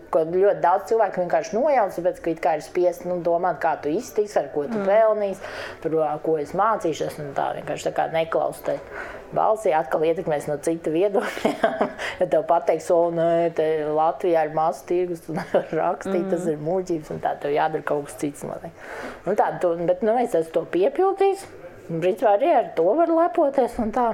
Ko ļoti daudz cilvēku vienkārši nojauc, tāpēc, ka it kā ir spiest domāt, kā tu iztiks, ar ko tu pelnīs, par ko es mācīšos, un tā vienkārši tā kā neklaus tai balsī, atkal ietekmēs no cita viedokļa. Ja tev pateiks, nē, te Latvijā ir mazs tirgus, tu nevar rakstīt, tas ir muļķības, un tā tev jādara kaut kas cits. Un tā, bet es esmu to piepildījis, un principā arī ar to var lepoties, un tā.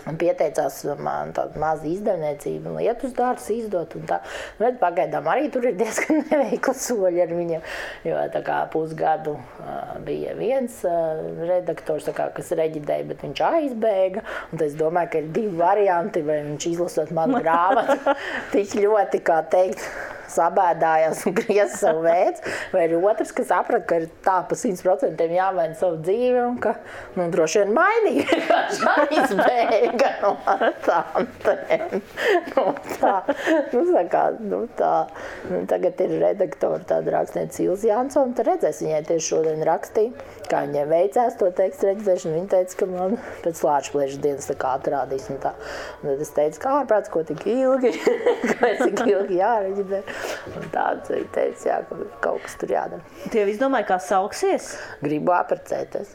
Un pieteicās man tādu mazu izdevniecību un lietus dārzus izdot un tā. Bet pagaidām arī tur ir diezgan neveikli soļi ar viņiem, jo tā kā pusgadu bija viens redaktors, tā kā, kas reģidēja, bet viņš aizbēga. Un es domāju, ka ir 2 varianti, vai viņš izlasot manu grāmatu tik ļoti, kā teikt, sabēdājās un griez savu veids, vai ir otrs, kas saprat, ka ir tā pa 100% jāmaina savu dzīvi un ka, nu, droši vien mainīja, vienkārši aizbēga no tantēm. Tā. Tagad ir redaktori tāda rakstniece Ilze Jansone, tad redzēs, viņai tieši šodien rakstīja, kā viņai veicās to tekstu reģistrēšanu. Viņa teica, ka man pēc Lāčplēša dienas tā kā atrādīs un tā. Un tad es teicu, kā ārprāts, ko tik ilgi, kāpēc tik ilgi jāreģidē. Un tāds viņa teica, jā, ka kaut kas tur jādara. Tu jau izdomāji, kā sauksies? Gribu aprecēties.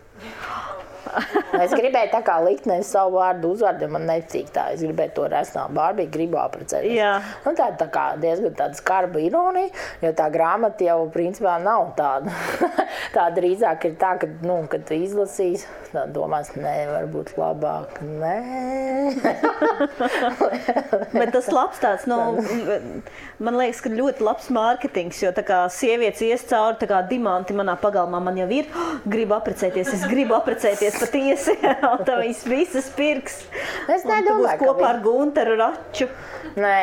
Es gribēju tā kā likt nevis savu vārdu uzvārdu, man neticīgi tā. Es gribēju to resnā Barbiju, gribu apprecēties. Jā. Nu, tā kā diezgan tāda skarba ironija, jo tā grāmata jau principā nav tāda. Tā drīzāk ir tā, ka, kad tu izlasīs, tā domās, varbūt labāk, Bet tas labs tāds, man liekas, ka ļoti labs mārketings, jo tā kā sievietes ies cauri, tā kā dimanti manā pagalmā man jau ir, gribu apprecēties, es gribu apprecēties patiesi, un tā viņas visas pirks. Es nedomāju, ka kopā ar Gunteru Raču. Nē,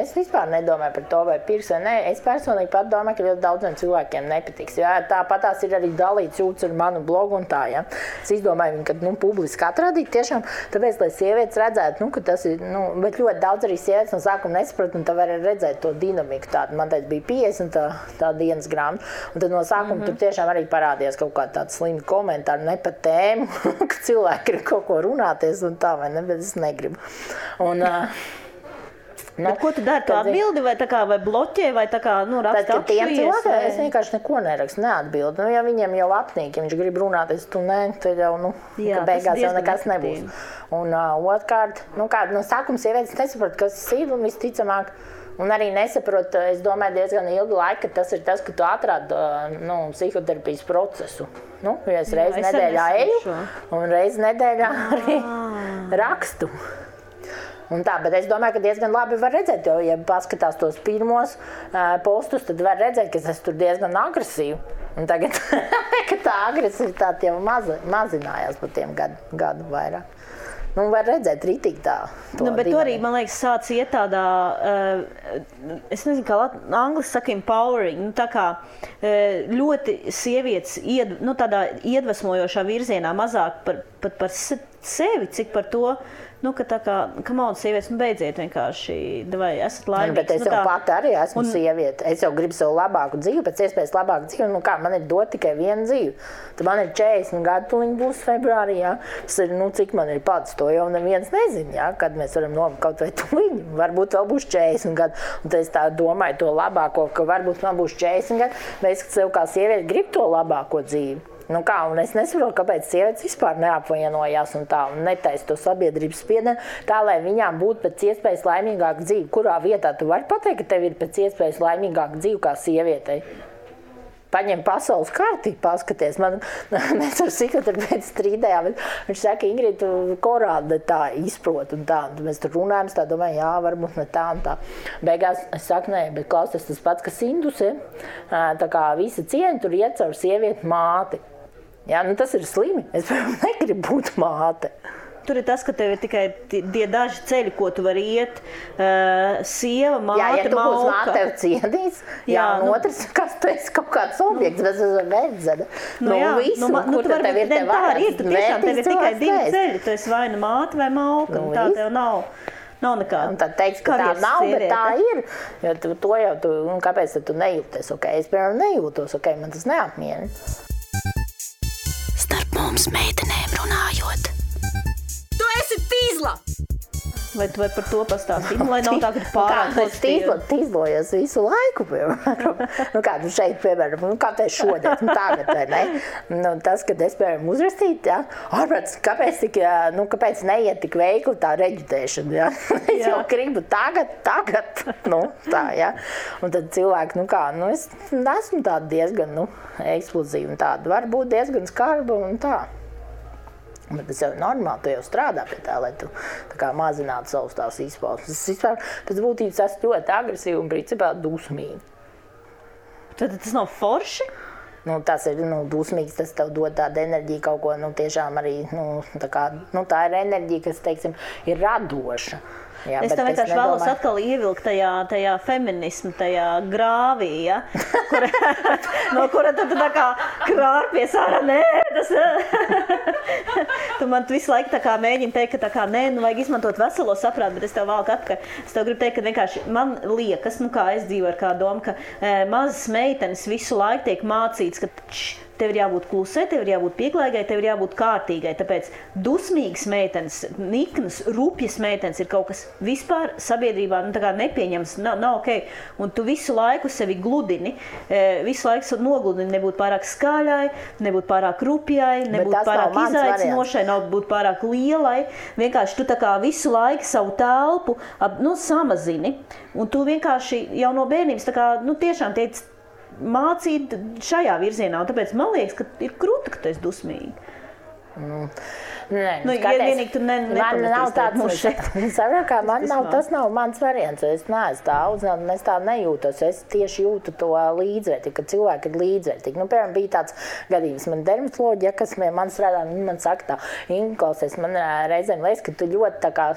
es vispār nedomāju par to, vai pirks vai nē. Es personīgi pat domāju, ka ļoti daudziem cilvēkiem nepatiks. Jā, tāpat tās ir arī dalīts jūtas ar manu blogu un tā, jā. Es izdomāju viņu, ka, publiski atrādīt tiešām, tāpēc, lai sievietes redzētu, ka tas ir, bet ļoti daudz arī sievietes no sākuma nesaprata, un tā var redzēt to dinamiku tādu. Man teica, bija 50 tā dienas grāmata, un tad no sākuma tur tiešām arī parādījās kaut kāda tāda slima komentāra, ne par tēmu, ka cilvēki grib kaut ko runāties un tā, vai ne, bet es negribu. Un, bet ko tu dari? Tu atbildi vai tā kā vai bloķē vai tā kā, raksti atšķiries? Es vienkārši neko nerakstu, neatbildu. Ja viņiem jau apnīk, ja viņš grib runāties, tu ne, tad jau, Jā, ka beigās jau nekas nebūs. Un otrkārt, no sākuma sievietes nesaprot, kas ir un visticamāk. Un arī nesaprot, es domāju, diezgan ilgu laiku, ka tas ir tas, ka tu atrādi psihoterapijas procesu. Ja es reizi nedēļā eju un reizi nedēļā arī rakstu. Un tā, bet es domāju, ka diezgan labi var redzēt, jo, ja paskatās tos pirmos postus, tad var redzēt, ka es tur diezgan agresīvi. Un tagad, ka tā agresivitāte jau mazinājās pa tiem gadu vairāk. Var redzēt ritīgi tā. Bet tu arī, man liekas, sāc iet tādā, es nezinu, kā angliski saka, empowering, tā kā ļoti sievietes tādā iedvesmojošā virzienā mazāk par sevi, cik par to, ka tā kā, kamauda sievietes, beidziet vienkārši, vai esat laimīgs. Bet es jau pati arī esmu sieviete. Es jau gribu savu labāku dzīvi, pēc iespējas labāku dzīvi. Man ir dot tikai vienu dzīvi. Tad man ir 40 gadu, tuliņ būs februārī, jā. Tas ir, cik man ir pats, to jau neviens nezina, jā, kad mēs varam nobūt kaut vai tuliņ. Varbūt vēl būs 40 gadu. Un tad es tā domāju to labāko, ka varbūt man būs 40 gadu, bet es sev kā sieviete gribu to labāko dzīvi. Un es nesaprotu, kāpēc sievietes vispār neapvainojās un tā, un netaisa to sabiedrības spiedienu, tā, lai viņām būtu pēc iespējas laimīgāka dzīve. Kurā vietā tu vari pateikt, ka tev ir pēc iespējas laimīgāka dzīve kā sievietei? Paņem pasaules karti, paskaties. Mēs ar psihoterapeitu strīdējām, viņš saka, Ingrid, tu korādi tā izprot un tā. Un mēs tur runājam, tā domāju, jā, varbūt ne tā un tā. Beigās es saku, nē, bet klausies tas pats, kas induse. Tā kā visa cieņa tur iet caur sievieti māti. Jā, tas ir slimi. Es, piemēram, negribu būt māte. Tur ir tas, ka tev ir tikai tie daži ceļi, ko tu vari iet. Sieva, māte, jā, ja tu mauka. būs māte, tev ciedīs. Jā, un otrs, kas tu esi kaut kāds objekts, bet es esmu verdzene. Visu, kur tev ir te vārds. Tu tiešām tev ir tikai divi ceļi. Tu esi vai nu māte vai mauka. Tā tev nav nekāda. Un tad teiks, ka tā nav, bet tā ir. Jo to jau tu, kāpēc tu nejūties? Es, piemēram, nejūtos, man tas neapmierina. Starp mums meitenēm runājot. Tu esi tīzla! Vai tu vari par to pastāstīt? Lai nav tā, ka pārāk tīzlojies visu laiku, piemēram. Kā tu šeit, piemēram, kāpēc šodien, tagad, vai ne? Tas, kad es, piemēram, uzrakstītu, jā, ārprāt, kāpēc neiet tik veikli tā reģitēšana, jā? Es jau gribu tagad, tā, jā. Un tad cilvēki, es esmu tāda diezgan, eksplozīva un tāda, varbūt diezgan skarba un tā. Bet tas jau ir normāli, tu jau strādā pie tā, lai tu tā kā mazinātu savus tās izpausmes. Es vispār pēc būtības esmu ļoti agresīvi un principā dusmīgi. Tad tas nav forši? Tas ir dusmīgs, tas tev dod tādu enerģiju kaut ko, tiešām arī, tā ir enerģija, kas, teiksim, ir radoša. Jā, es tam vienkārši vēlos atkal ievilkt tajā feminismu, tajā grāvī, ja? No kura tad tā kā krārpies ārā, nē, tas... Tu man visu laiku tā kā mēģini teikt, ka tā kā, nē, vajag izmantot veselo saprātu, bet es tev valku atpakaļ. Es tev gribu teikt, ka vienkārši man liekas, kā es dzīvoju ar kā domu, ka mazas meitenes visu laiku tiek mācīts, ka tev ir jābūt klusai, tev ir jābūt pieklājīgai, tev ir jābūt kārtīgai. Tāpēc dusmīgas meitenes, niknas, rupjas meitenes ir kaut kas vispār sabiedrībā nepieņems, nav ok. Un tu visu laiku sevi gludini, visu laiku nogludini, nebūt pārāk skaļai, nebūt pārāk rupjai, nebūt pārāk izaicinošai, nebūt pārāk lielai. Vienkārši tu tā kā visu laiku savu telpu samazini. Un tu vienkārši jau no bērnības tā kā, tiešām tiec mācīt šajā virzienā. Un tāpēc man liekas, ka ir krūta, ka tu esi dusmīgi. Vienīgi tu tas nav mans variants. Es neesmu tā audzināta, es tā nejūtos. Es tieši jūtu to līdzvērtīgi, ka cilvēki ir līdzvērtīgi. Piemēram, bija tāds gadījums, man dermatoloģija, kas man strādā, man saka tā, klausies, man reizēm liekas, ka tu ļoti tā kā,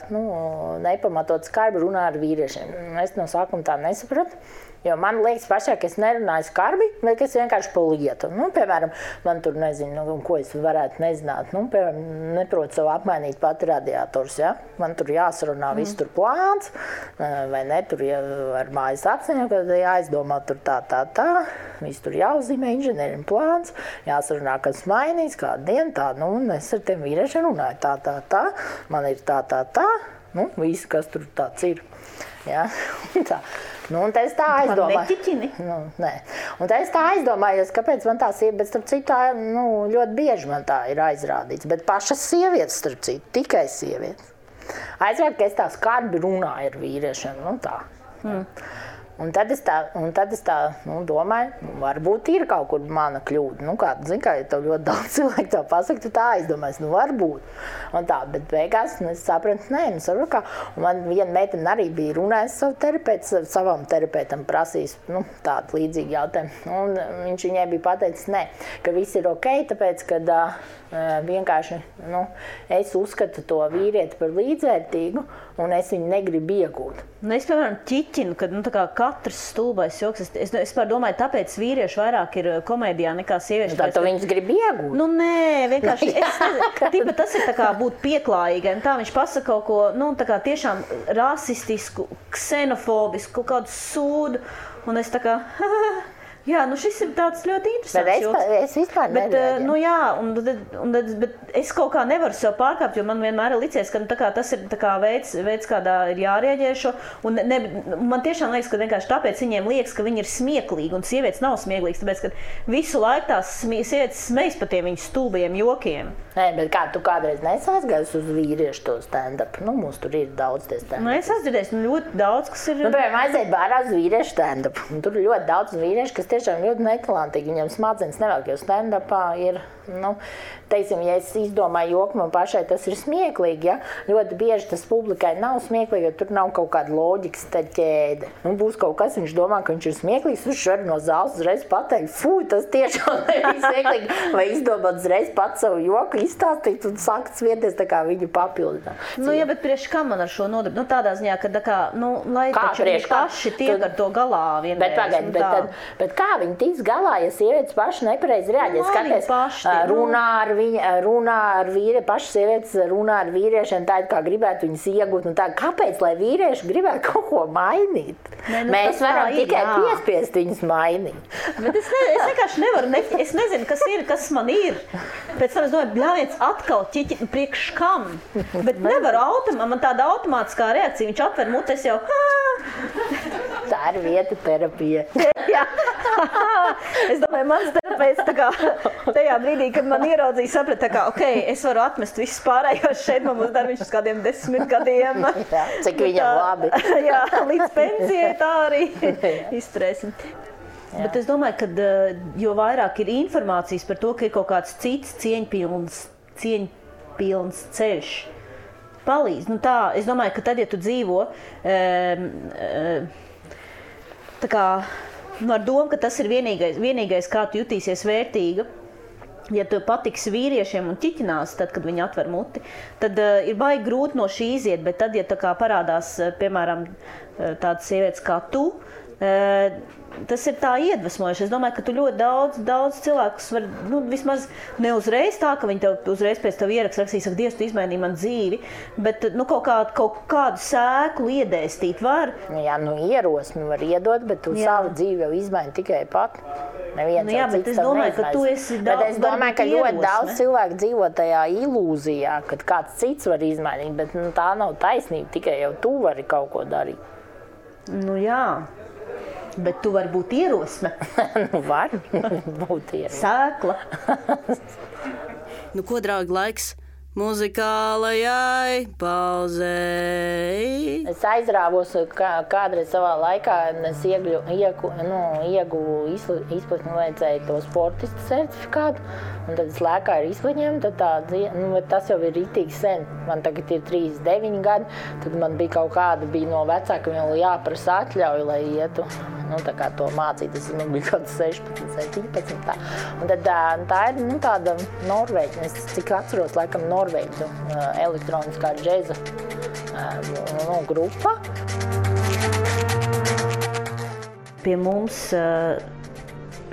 nepamatot skarbi runā ar vīriešiem. Es no sākuma tā nesapratu. Jo man liekas pašā, ka es nerunāju skarbi, bet es vienkārši pa lietu. Piemēram, man tur nezinu, ko es varētu nezināt. Piemēram, neprotu sev apmainīt pati radiators, ja? Man tur jāsarunā viss tur plāns, vai ne, tur ar mājas apziņu, kad jāizdomā tur tā. Viss tur jāuzzīmē inženierim plāns, jāsarunā, kas mainīs, kādu dienu tā, un es ar tiem vīriešiem runāju tā, man ir tā, viss, kas tur tāds ir. Ja? Tā. Un tad es tā aizdomāju. Nē. Un tad es tā aizdomājos, kāpēc man tā sieva, bet starp citu, ļoti bieži man tā ir aizrādīts. Bet pašas sievietes, starp citu, tikai sievietes. Aizvērt, ka es tā skarbi runāju ar vīriešiem, tā. Un tad es tā domāju, varbūt ir kaut kur mana kļūda. Ja tev ļoti daudz cilvēku tā pasaka, tu tā aizdomājies, varbūt. Un tā, bet beigās es sapratu, kā. Un man viena meitene arī bija runājusi savam terapeitam prasījis tādu līdzīgu jautājumu. Un viņš viņai bija pateicis, ka viss ir ok, tāpēc, kad vienkārši es uzskatu to vīrieti par līdzvērtīgu un es viņu negribu iegūt. Es, piemēram, ķiķinu, kad katrs stulbais joks. Es domāju, tāpēc vīrieši vairāk ir komēdijā nekā sievieši. Tā tu viņus grib iegūt? Nē, vienkārši. Tas ir tā kā būt pieklājīgai. Tā viņš pasaka kaut ko, tā kā tiešām rasistisku, ksenofobisku, kaut kādu sūdu. Un es tā kā... Jā, šis ir tāds ļoti interesants joks. Bet es vispār nereaģēju. Bet es kaut kā nevaru sev pārkāpt, jo man vienmēr ir licies, ka tas ir veids, kādā ir jārēģē šo. Un man tiešām liekas, ka vienkārši tāpēc viņiem liekas, ka viņi ir smieklīgi, un sievietes nav smieklīgas, tāpēc, ka visu laiku tās sievietes smejas par tiem viņu stulbajiem jokiem. Nē, bet kā tu kādreiz nesaizgājis uz vīriešu to stand-up? Mums tur ir daudz tie stand-up. Es atdzirdēju, ļoti daudz, kas ir... Piemēram, aiziet bārā uz vīriešu stand-up. Tur ir ļoti daudz vīriešu, kas tiešām ļoti netalantīgi. Viņam smadzenes nevelk, jo stand-upā ir, teiksim, ja es izdomāju joku, man pašai tas ir smieklīgi, ja? Ļoti bieži tas publikai nav smieklīgi, jo tur nav kaut kāda loģikas ķēde. Būs kaut kas, viņš domā, ka viņš ir smieklīgs, viņš var no zāles uzreiz pateikt, tas tiešām nebija smieklīgi, vai izdomāt uzreiz pats savu joku, izstāstīt un sākt svieties tā kā viņu papildināt. Ja, bet priekš kā man ar šo nodarbi? Tādā ziņā, ka lai taču viņi paši tiek ar to galā vienreiz. Bet kā viņi tiks galā, ja sievietes paši nepareizi reaģē? Skaties, runā ar vīriešiem, paši sievietes runā ar vīriešiem tā, kā gribētu viņus iegūt. Un tā, kāpēc, lai vīrieši gribētu kaut ko mainīt? Mēs varam tikai piespiest viņus mainīt. Bet es vienkārši nevaru, es nezinu, kas man ir. Pēc tam es domāju, bļāviens atkal ķiķi, priekš kam? Bet nevaru man tāda automātiskā reakcija, viņš atver mutes jau. Tā ir vieta terapija. Jā. Es domāju, mans terapeits tajā brīdī, kad man ieraudzīja, saprata, ok, es varu atmest visus pārējos šeit, man būs darbiņš uz kādiem 10 gadiem. Jā, cik viņam labi. Jā, līdz pensijai tā arī izturēsim. Jā. Bet es domāju, ka jo vairāk ir informācijas par to, ka ir kaut kāds cits cieņpilns ceļš, palīdz. Es domāju, ka tad, ja tu dzīvo ar domu, ka tas ir vienīgais, kā tu jutīsies vērtīga, ja tu patiksi vīriešiem un ķiķinās, tad, kad viņi atver muti, tad ir baigi grūti no šī iziet, bet tad, ja parādās, piemēram, tādas sievietes kā tu, Tas ir tā iedvesmojoši. Es domāju, ka tu ļoti daudz cilvēkus var, vismaz ne uzreiz tā, ka viņi tev uzreiz pēc tev ierakstīs, saka, Dievs, tu izmainīji man dzīvi, bet kaut kādu sēklu iedēstīt var. Jā, ierosmi var iedot, bet tu savu dzīvi jau izmaini tikai pat. Jā, bet es domāju, ka tu esi bet es domāju, ka ļoti daudz cilvēku dzīvo tajā ilūzijā, kad kāds cits var izmainīt, bet tā nav taisnība, tikai jau tu vari kaut ko darīt. Jā. Bet tu vari būt ierosme. Var būt ierosme. Sēkla. Ko, draugi, laiks muzikālajai pauzei? Es aizrāvos kādreiz savā laikā, un es ieguvu izplatni vajadzēja to sportistu certifikātu, un tad es lēkāju ar izplatņiem, tad tas jau ir ritīgi sen. Man tagad ir 39 gadi, tad man bija kaut kāda, no vecākiem vēl jāprasa atļauju, lai ietu. Tā kā to mācīt, es bija kaut 16, 17 tā. Un tad tā ir tāda Norvēģa, es cik atceros, laikam Norvēģu elektroniskā džeza grupa. Pie mums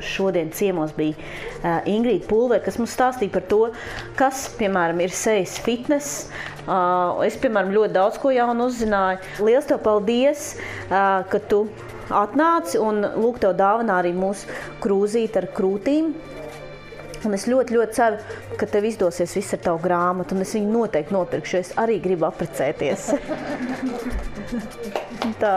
šodien ciemos bija Ingrīda Pulvere, kas mums stāstīja par to, kas, piemēram, ir sejas fitness. Es, piemēram, ļoti daudz ko jaunu uzzināju. Liels tev paldies, ka tu atnāci un lūk tev dāvanā arī mūsu krūzīti ar krūtīm. Un es ļoti, ļoti ceru, ka tev izdosies viss ar tavu grāmatu, un es viņu noteikti nopirkšu, jo es arī gribu apprecēties. Tā.